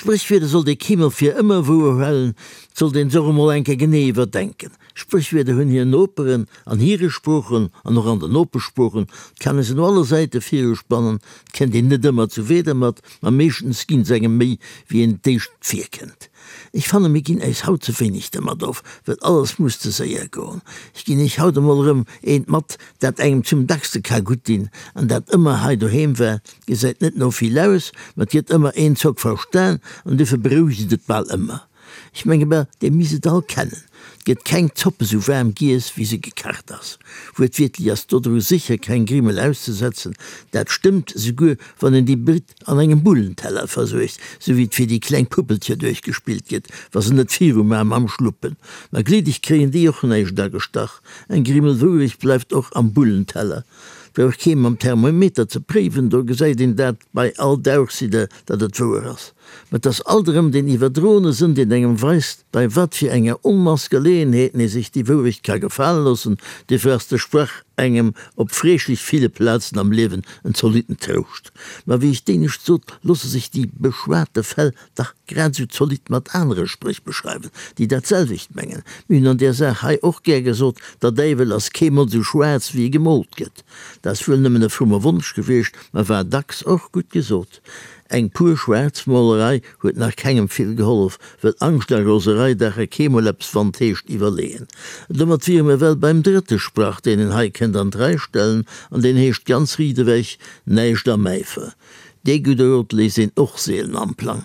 Spréchwierder sollt ee keemol fir ëmmer wouer hualen, 't sollt een se och emol eng Kéier genee iwwerdenken. Spréchwierder hunn hir Noperen an hire Sproochen an och an den Nopeschsproochen, 't kann ee se no alle Säite viruspannen, 't kennt een net ëmmer zu Wieder mat, ma meeschtens ginn se engem méi wéi een d'éischt virkënnt. Ech fanne mir ginn äis haut ze wéineg dermat of, well alles muss ze séier goen. Ech ginn iech haut emol erëm eent mat, dat engem zum dackste ka gutt dinn an dat ëmmer hei doheem war. Gesäit net no vill aus, ma 't gëtt ëmmer een Zock verstan an dofir berouegt et bal ëmmer. Ech menge bal, dir misst et all kennen, 't gëtt keng Zopp esou waarm giess, wéi se gekacht ass. Wuertwiertlech ass dodru sécher keng Grimmel auszesetzen. Dat stëmmt esouguer, wann een déi Britt an engem Bullenteller versuergt, sou wéi et fir déi kleng Puppelcher duerchgespillt gëtt, wa se net viru maan mam Schluppen. Ma gliddeg kréien déi och näischt agestach. Eng Grimmel Wourecht bleift och am Bullenteller. Brauch kee mam Thermometer ze préiwen, do gesäit een dat bei all Dauchsidder, datt et wouer ass. Mä et ass alt erëm deen iwwerdroene Sënn, deen engem weist, bei wat fir enger Onmass Geleeënheeten ee sech déi Wourecht ka gefale loossen. Duerfir ass de Sprach engem op freeschlech ville Plazen am Liewen en zolitten Trouscht. Ma wéi ech d'éinescht sot, loosse sech déi beschwate Fäll dach grad esou zolidd mat anere Spréch beschreiwen, déi dat selwecht mengen. Mir hunn an där Saach hei och gär gesot, Der Däiwel ass keemol esou schwaarz, wéi e gemoolt gëtt. Dat ass wuel nëmmen e fromme Wonsch gewiescht, ma war dacks och gutt gesot. Eng pur Schwaarzmolerei huet nach kengem vill gehollef, well Angscht a Roserei daache keemol eppes wann 't heescht iwwerleeën. Domat wiere mir well beim drëtte Sprach, deen een hei kënnt an d'Rei stellen, an deen heescht ganz riit ewech, Näischt am Äifer. Dee gudde Rot léisst een och seelen am Plang.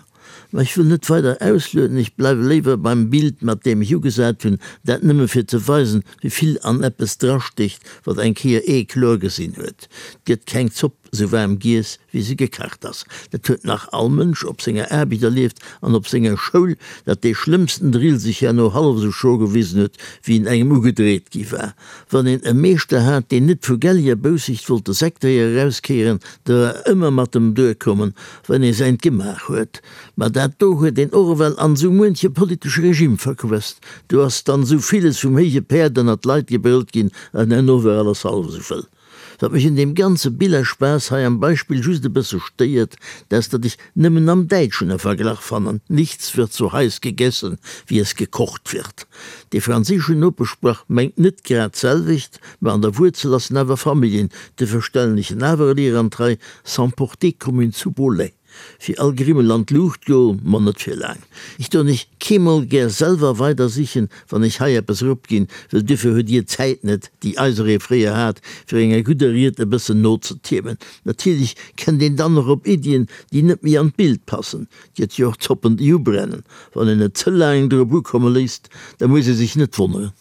Ma ech wëll net weider auslueden, ech bleiwe léiwer beim Bild, mat deem ech ugesat hunn, dat nëmme fir ze weisen, wéi vill an eppes drastécht, wat eng Kéier ee kloer gesinn huet. 't gëtt keng Zopp sou waarm giess, wéi se gekacht ass. Dat huet nach all Mënsch op senger Aarbecht erlieft an op senger Schoul, datt dee schlëmmsten Drill sech herno hallef esou schro gewisen huet, wéi en engem ugedreet gi war. Wann een e Meeschter hat, deen net vu gelliger Boussicht wollt de Säckdréier erauskéieren, da war ëmmer mat em duerkommen, wann ee säint gemaach huet. Ma dat do huet een och ewell an esou muenche politesche Regime verquësst. Do ass dann esou villes vum héije Päerd ënnert d'Leit gebrëllt ginn, an herno war alles hallef esou wëll. Wat mech un deem ganze Billerspaß hei am Beispill just e bësse stéiert, dat ass, datt ech nëmmen am Däitschen e Verglach fannen, Nichts wird so heiß gegessen, wie es gekocht wird. Dee franséischen Nopeschsprach mengt net grad d'selwecht, mä an der Wuerzel ass en awer Familljen, duerfir stellen ech en awer elier an d'Rei, S'emporter comme une soupe au lait. Fir all Grimmel an d'Luucht goen, ma net fir laang. Ech doen ech keemol gär selwer weider sichen, wann ech hei eppes eropginn, well duerfir huet dir d'Zäit net, déi eiseree fréier hat, fir enger gudder Ried e bëssen nozetiirmen. Natierlech kennt een dann och op Iddien, déi net méi an d'Bild passen. 't gëtt jo och Zoppen, déi ubrennen. Wann een et ze laang drop ukomme léisst, da muss ee sech net wonneren.